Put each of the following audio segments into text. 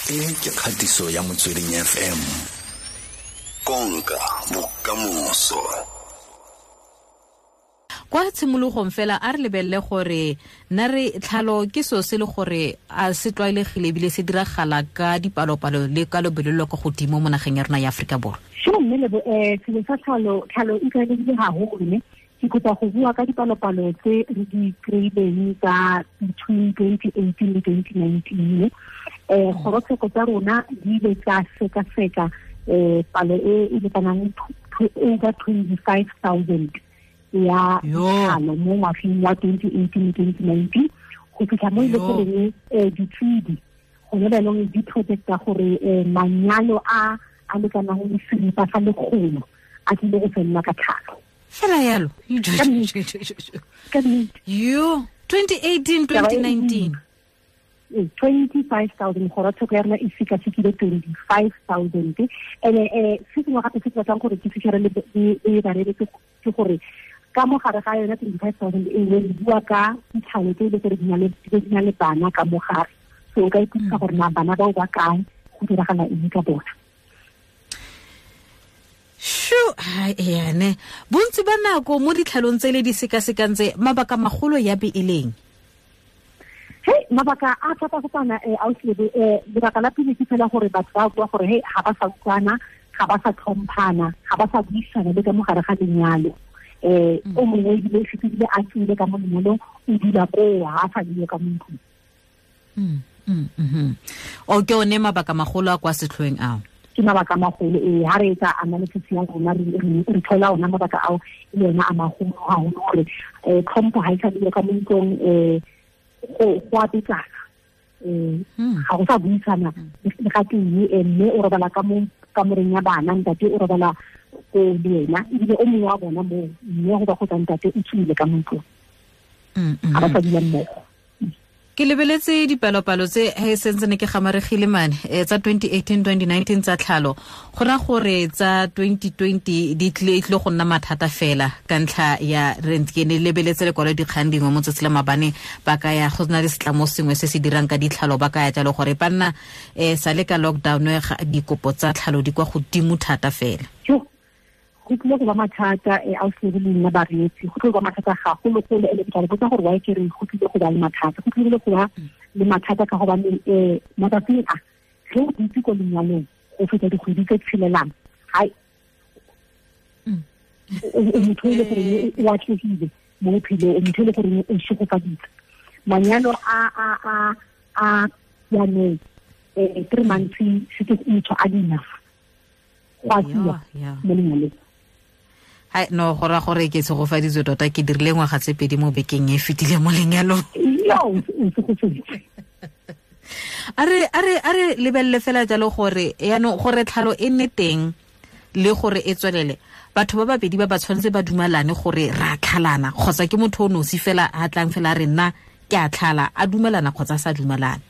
E ke kgatiso ya Motsweding FM. Konka bokamoso. Kwa tshimologong fela a re lebelele gore nna re tlhalo ke seo se le gore a se tlwaelegile ebile se diragala ka dipalopalo le ka lobelo lo kwa godimo mo nageng ya rona ya Aforika Borwa. Sure, mme Lebo, selo sa tlhalo, tlhalo e tlwaelegile haholo, ne? Ke kopa go bua ka dipalopalo tse re di kry-ileng tsa between 2018 le 2019. Kgorotsheko tsa rona di ile tsa sekaseka palo e e lekanang over 25,000 ya tlhalo mo ngwageng wa 2018 le 2019, go fitlha mo e le goreng ditshedi gone jaanong di projecta gore manyalo a a lekanang le seripa sa lekgolo a tlile go felela ka tlhalo. Fela yalo. Ka nnete. Yo, 2018, 2019. 25,000, kgorotsheko ya rona e sekasekile 25,000. And-e se sengwe gape se ke batlang gore ke fitlhele le bareetsi ke gore ka mo gare ga yona 25,000 e nngwe re bua ka ditlhalo tse e le gore di na le bana ka mo gare. So o ka ipotsa gore na bana bao ba kae, go diragala eng ka bona. Shu, ene bontsi ba nako mo ditlhalong tse le di sekasekang tse, mabaka magolo ya be e leng? Hey, mabaka a fapafapana, ausi Lebo, lebaka la pele ke fela gore batho ba bua gore hey, ga ba sa utlwana, ga ba sa tlhomphana, ga ba sa buisana le ka mo gare ga lenyalo. O mongwe ebile o fetile a tswile ka mo lenyalong, o dula koo, ga a sa dule ka mo ntlong. O ke one mabaka magolo a kwa setlhoeng ao? Ke mabaka magolo, ee, ha re etsa analysis ya rona, re thola ona mabaka ao e le ona a magolo haholo gore, tlhompho ha e sa dule ka mo ntlong, go a betsana. Ga go sa buisana le ga tee, mme o robala ka mo kamoreng ya bana, ntate o robala ko le ena, ebile o mongwe wa bona moo, mme go ba go tsa ntate o tswile ka mo ntlong. Ga ba sa dula mmogo. Ke lebeletse dipalopalo tse he sentse ne ke gamaregile mane, tsa 2018, 2019 tsa tlhalo. Go ra gore tsa 2020 di tlile go nna mathata fela ka ntlha ya rent. Ke ne lebeletse lekwalo dikgang dingwe mo tsatsi la mabane, ba ka ya go na le setlamo sengwe se se dirang ka ditlhalo, ba ka ya jalo gore ba nna, sa le ka lockdown, dikopo tsa tlhalo di kwa godimo thata fela. Yo, go tlile go ba mathata, ausi le nna bareetsi, go tlile go ba mathata gagologolo, e le ke tla le botsa gore why ke re go tlile go ba le mathata. Go tlile go ba le mathata ka gobane, matsatsing a, ge o dutse ko lenyalong go feta dikgwedi tse tshelelang, hai, o motho e le gore o atlegile mo bophelong, o motho e le gore o šegofaditse. Manyalo a jaanong, 3 months setse motho a di enough go a tsiwa mo lenyalong. Hai, no, go raya gore ke tshegofaditswe tota, ke dirile ngwaga tse pedi mo bekeng e fetile mo lenyalong. Yo, o tshegofaditswe. A re lebelele fela jalo gore yaanong gore tlhalo e nne teng le gore e tswelele, batho ba babedi ba ba tshwanetse ba dumalane gore ra tlhalana, kgotsa ke motho o nosi fela a tlang fela a re nna ke a tlhala, a dumalana kgotsa a sa dumalane.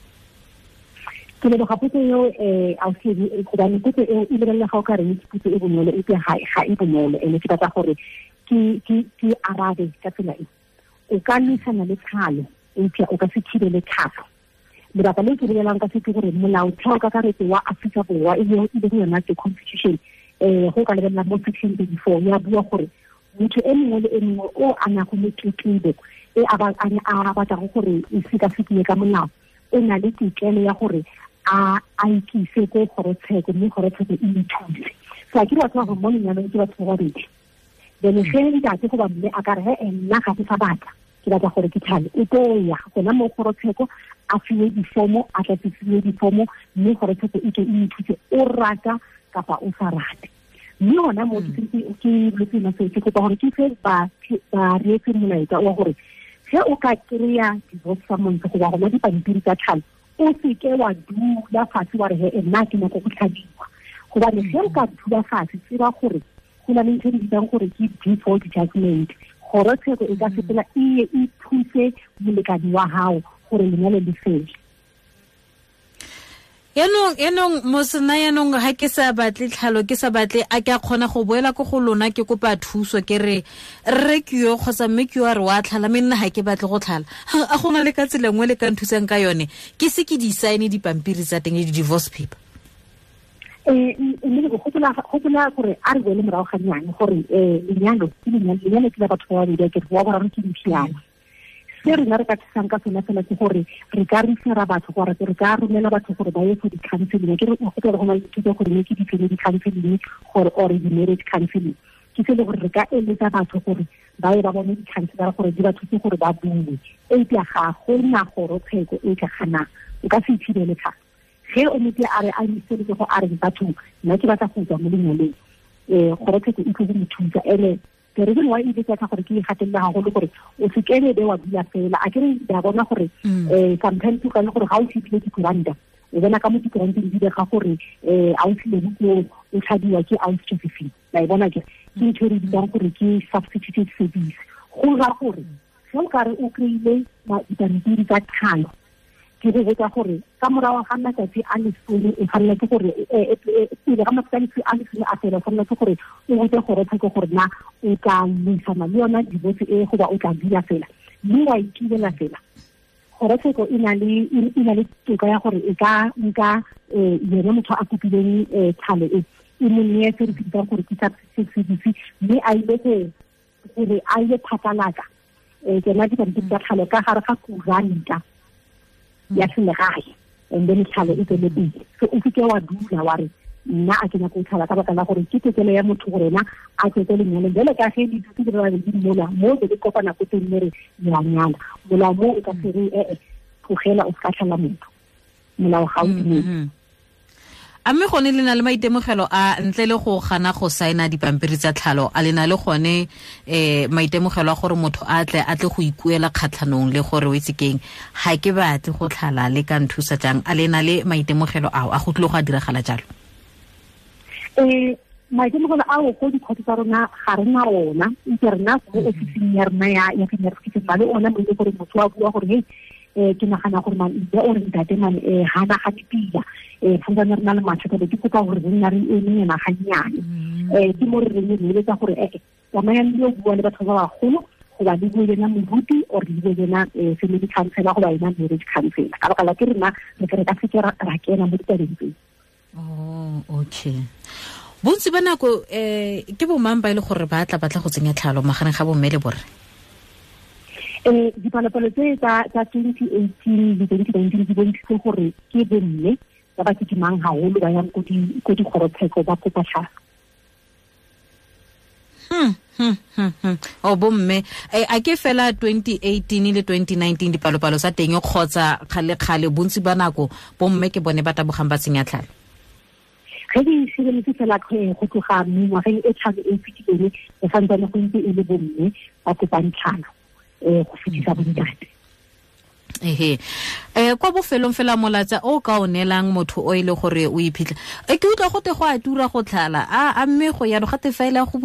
Ke leboga potso eo, ausi, gobane potso eo e lebelela ga o ka reng ke potso e bonolo, epe ga e bonolo, ene ke batla gore ke arabe ka tsela e. O ka lwisana le tlhalo, eupša o ka se thibele tlhalo. Lebaka le ke bolelang ka se ke gore molaotheo kakaretso wa Aforika Borwa, e leng yona ke constitution, go ka lebelela mo section 34, ya bua gore motho e mongwe le e mongwe o a nago le tletlebo e a a batlago gore e sekasekiwe ka molao, o na le tokelo ya gore a ikise ko kgorotsheko, mme kgorotsheko e mo thuse. So a ke batho ba gore mo lenyalong ke batho ba babedi. Then ge ntate goba mme a ka re, he, nna ga ke sa batla, ke batla gore ke tlhale, o tlo ya gona mo kgorotsheko, a fiwe difomo, a tlatsisiwe difomo, mme kgorotsheko e tle e mo thuse, o rata kapa o sa rate. Mme hona moo ke ke boletse nna seo, ke kopa gore ke fe bareetsi molaetsa wa gore ge o ka kry-a divorce summons goba gona dipampiri tsa tlhalo, o seke wa dula fatshe wa re, he, nna ke nyaka go tlhadiwa. Gobane ge o ka dula fatshe, tseba gore go na le ntho e re bitsang gore ke default judgment. Kgorotsheko e ka sepela e ye e thuse molekane wa hao gore lenyalo le fele. Yanong mosena yanong ha ke sa batle tlhalo, ke sa batle, a ke a kgona go boela ko go lona ke kopa thuso, ke re rre ke yo kgotsa mme ke yo a re wa tlhala, mme nna ha ke batle go tlhala. A gona le ka tsela nngwe le ka nthusang ka yone, ke se ke di sign dipampiri tsa teng le di-divorce paper? Mme gopola gore a re boele morago ga nnyane gore lenyalo ke lenyalo, ke la batho ba babedi, ke re wa boraro ke diphiana. Se rena re ka thusang ka sona fela ke gore re ka refera batho, gore re ka romela batho gore ba ye for di-counseling. Ke re gopola go na le dithuto gore ne ke di-family counseling gore or di-marriage counseling, ke se le gore re ka eletsa batho gore ba ye ba bone di-counselor gore di ba thuse gore ba bue. Eupša ga gona kgorotsheko e ka ganang, o ka se ithibele tlhalo. Ge o motho a re a iseletse go a re batho nna ke batla go tswa mo lenyalong, kgorotsheko e tlo go mo thusa. Ene the reason why e betsa gore ke e gatelela haholo gore o se kene be wa dula fela, a ke re ba bona gore sometimes o ka le gore ga o fitlhile dikuranta, o bona ka mo dikuranteng di bega gore a o tlile ko o tlhadiwa ke ausi Josephine, la e bona ke ntho e re bitsang gore ke substituted service. Go ra gore ge o kare o kry-ile dipampiri tsa tlhalo, ke go botsa gore ka morago ga matsatsi a lesome o tshwanela ke gore pele ga matsatsi a lesome a fela, o tshwanela ke gore o botse kgorotsheko gore na o tla buisana le yona divorce e goba o tla dula fela, mme wa itulela fela. Kgorotsheko e na le toka ya gore e ka nka yena motho a kopileng tlhalo e e mo neye se re se bitsang gore ke substitute service, mme a ile gore a ile phatlalatsa tsona dipampiri tsa tlhalo ka gare ga kuranta ya selegae, and then tlhalo e tswele pele. So o seke wa dula wa re nna a ke nyaka go tlhala, ka baka la gore ke tokelo ya motho gore ena a tswetse lenyalong. Jalo ka ge le dutse le ba babedi mola mo be le kopana ko teng mo re le a nyala, molao mo o ka se re ee tlogela o se ka tlhala motho, molao ga o dumele. A mme gone le na le maitemogelo a ntle le go gana go saena dipampiri tsa tlhalo, a le na le gone maitemogelo a gore motho a tle go ikuela kgatlhanong le gore o itse keng, ga ke batle go tlhala, le ka nthusa jang? A le na le maitemogelo ao a go tlile go a diragala jalo? Maitemogelo ao ko dikgotso tsa rona ga re na ona, ntse rena mo ofising ya rona ya female le ona mo e le gore motho wa bua gore hey ke nagana gore man mme o re ntate man ha na ga dipila, santsane re na le mathata, be ke kopa gore re nna re eme nyana gannyane. Ke mo re reng re eletsa gore tsamayang le yo bua le batho ba bagolo, goba le bue le ena moruti or le bue le ena family counselor goba ena marriage counselor, ka baka la ke rena re tle re ka seke ra kena mo ditabeng tseo. Oh, okay. Bontsi ba nako ke bo mang ba e le gore ba tla batla go tsenya tlhalo magareng ga bomme le borre? Dipalopalo tse tsa 2018 le 2019 di bontshitse gore ke bomme ba ba kitimang haholo ba yang ko dikgorotsheko ba kopa tlhalo. O bomme a ke fela 2018 le 2019 dipalopalo tsa teng kgotsa kgale-kgale bontsi ba nako bomme ke bone ba tabogang ba tsenya tlhalo? Ge di sireletse fela go tloga mengwageng e tlhano e fetileng, go santsane go ntse e le bomme ba kopang tlhalo go fetisa bontate. Ehe. Kwa bofelong fela molatsa o ka o neelang motho o e le gore o iphitlha, ke utlwa gote go a tura go tlhala, a mme go yalo gate fa ile go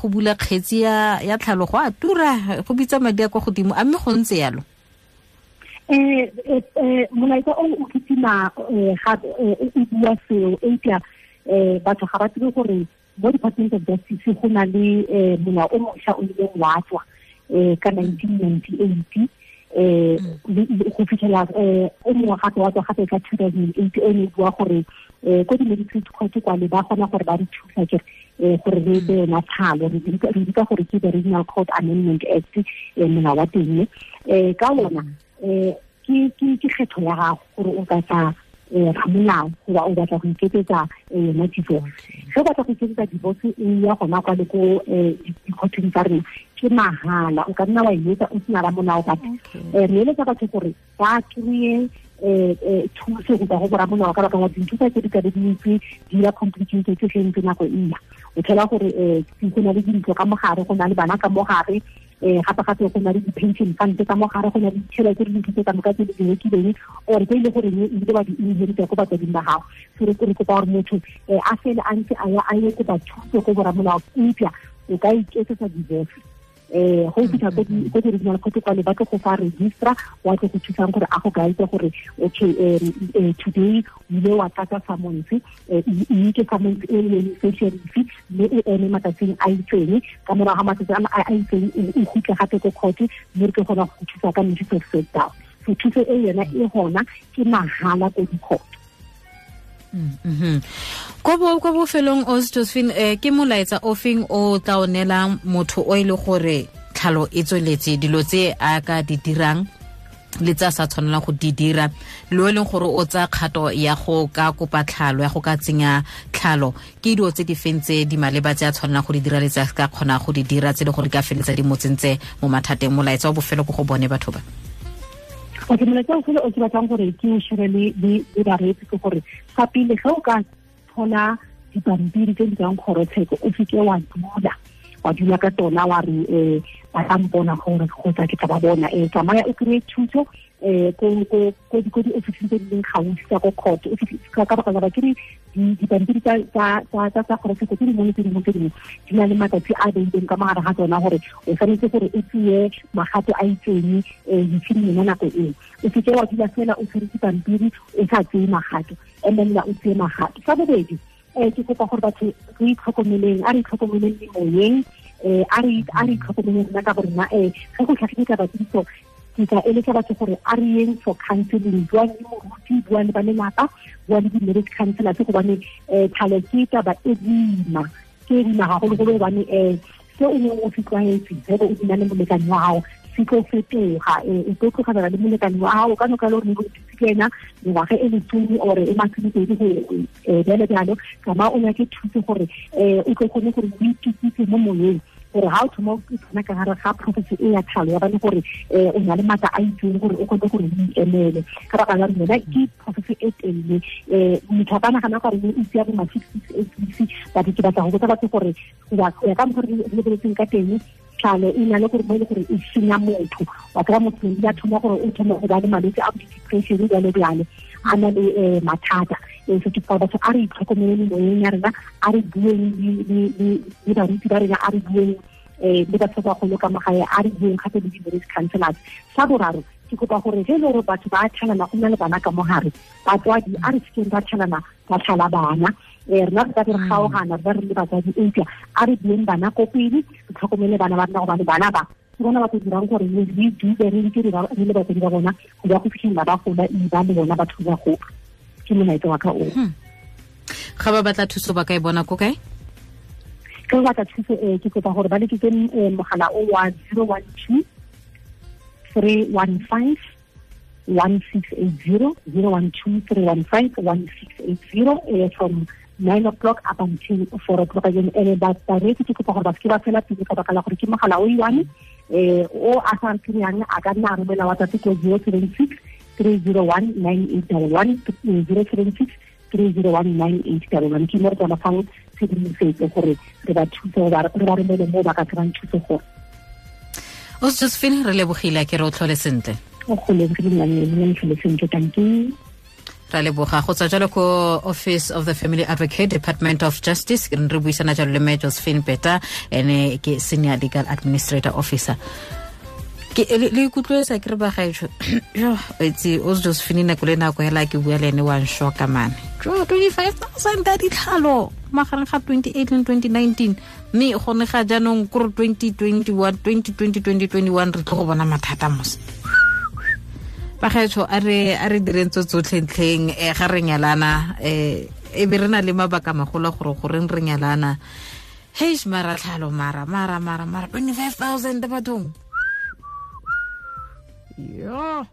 bula kgetsi ya tlhalo go a tura, go bitsa madi a kwa godimo, a mme go ntse yalo? Molaetsa o o kitima gape o bua seo, eupša batho ga ba tsebe gore mo Department of Justice go na le molao o mošwa o ileng wa tswa ka 1998 go fitlhela o mongwe gape wa tswa gape ka 2008, o ne bua gore ko di-magistrate court kwale ba kgona gore ba re thusa ke gore re etse yona tlhalo, re bitsa gore ke the Regional Court Amendment Act, molao wa teng. Ka ona ke kgetho ya gago gore o ka tla ramolao goba o batla go iketsetsa yona divorce. Ge o batla go iketsetsa divorce e ya gona kwa le ko dikgothong tsa rena ke mahala, o ka nna wa e etsa o sena ramolao, but re eletsa batho gore ba kry-e thuso go tswa go boramolao, ka baka la dintho tsa tse di ka be di ntse di ya complicated ge ntse nako e ya. O thola gore go na le dintlo ka mogare, go na le bana ka mogare, gape-gape go na le di-pension fund ka mogare, go na le ditšhelete le dintho tse ka moka tse di rekileng or tse e le goreng ebile ba di inherita ko batswading ba gago. So re kopa gore motho a fele a ntse a ya a ye kopa thuso ko boramolao, eupša o ka iketsetsa divorce Go fitlha ko di-regional court kwale ba tlo go fa registra wa tlo go thusang gore a go guide gore okay, today o ile wa tlatsa summons, mme ke summons e leng sheriff, mme o eme matsatsing a itseng, ka morago ga matsatsi a itseng o kgutle gape ko court, mme re tlo kgona go thusa ka notice of set down. So thuso e yona e gona ke mahala ko di-court. Ko bofelong o Josephine, ke molaetsa o feng o tla o neelang motho o e le gore tlhalo e tsweletse, dilo tse a ka di dirang le tsa sa tshwanelang go di dira, le o e leng gore o tsaya kgato ya go ka kopa tlhalo, ya go ka tsenya tlhalo, ke dilo tse di feng tse di maleba tse a tshwanelang go di dira le tse a ka kgona go di dira tse le gore di ka feletsa di mo tsentse mo mathateng? Molaetsa wa bofelo ko go bone batho ba. Okay, molaetsa o fela o ke batlang gore ke o share le bareetsi ke gore fa pele ge o ka thola dipampiri tse di tswang kgorotsheko, o seke wa dula ka tsona wa re ba tla mpona gore kgotsa ke tla ba bona. Tsamaya o kry-e thuso ko di-officing tse di leng gaufi tsa ko court. Ka baka la ba kere dipampiri tsa kgorotsheko tse dingwe le tse dingwe tse dingwe di na le matsatsi a beileng ka mogare ga tsona gore o tshwanetse gore o tseye magato a itseng within yona nako eo. O seke wa dula fela o tshwere dipampiri o sa tseye magato, emelela o tseye magato. Sa bobedi, ke kopa gore batho re itlhokomeleng, a re itlhokomeleng memoyeng, a re itlhokomeleng rona ka borena. Ge go tlhagile taba tse ditso, ke tla eletsa batho gore a re yeng for counseling, bua le moruti, bua le ba lelapa, bua le di-marriage counselors, gobane tlhalo ke taba e boima, ke e boima gagologolo, gobane se o neng o se tlwaetse ge o dula le molekane wa gago se tlo fetoga. O tlo tlogela le molekane wa gago ka noka le gore o thutse ke ena mengwaga e lesome ore e masomepedi go bjalo bjalo. Tsamaya o nyake thuso gore o tlo kgone gore o itukise mo moyeng, gore ha o thoma o tsena ka gare ga process e ya tlhalo ya bane gore o na le maatla a itseng gore o kgone gore o ikemele. Ka baka la rona ke process e telele, motho a ka nagana gore o itse ya bo ma 6 6 8 weeks, but ke batla go botsa batho gore go ya ka mokgwa re lebeletseng ka teng, tlhalo e na le gore mo e le gore e senya motho. Wa kry-a motho ya thoma gore o thoma go ba le malwetse a bo di-depression jalo jalo, a na le mathata. So ke kopa batho a re itlhokomeleng moyeng ya rena, a re bueng le baruti ba rena, a re bueng le batho ba bagolo ka magae, a re bueng gape le di-marriage counselors. Sa boraro, ke kopa gore ge e le gore batho ba tlhalana go nna le bana ka mogare, batswadi a re sekeng ba tlhalana ba tlhala bana. Rena re ka re kgaogana re ba re le batswadi, eupša a re bueng bana ko pele, re tlhokomele bana ba rena, gobane bana ba ke bona ba tlo dirang gore re dule re ntse re le batswadi ba bona go ba go fitlhelela ba gola, e ba le bona batho ba gola. Ke molaetsa wa ka oo. Ga ba batla thuso ba ka e bona ko kae? Ke ba batla thuso, ke kopa gore ba letsetse mogala o wa 012 315 1680, 012 315 1680, from 9 o'clock up until 4 o'clock again. Ene ba bareetsi ke kopa gore ba seke ba fela pele ka baka la gore ke mogala o i-one, o a sa kry-ang a ka nna a romela WhatsApp ko 076 301 9811, 076 301 9811. Ke mo re tla fang tshedimosetso gore re ba thuse, re ba romele mo ba ka kry-ang thuso gore. O Josephine, re lebogile, ke re o tlhole sentle. O go lebogile nna, tlhole sentle, thank you. Ra leboga. Go tswa jalo ko Office of the Family Advocate, Department of Justice, re buisana jalo le mme Josephine Peta, ene ke Senior Legal Administrator Officer. Ke le ikutlwetsa ke re ba gaetsho, jo itse o Josephine nako le nako hela ke bua le ene wa nshoka mane. Jo 25,000 ka ditlhalo magareng ga 2018 le 2019, mme gone ga jaanong kore 2021 2020 2021 re tlo go bona mathata mos. Bagaetsho, a re direng tso tsotlhe ntlheng, ga re nyalana, e be re na le mabaka magolo gore goreng re nyalana. Heish, mara tlhalo, mara 25,000 bathong. Yeah.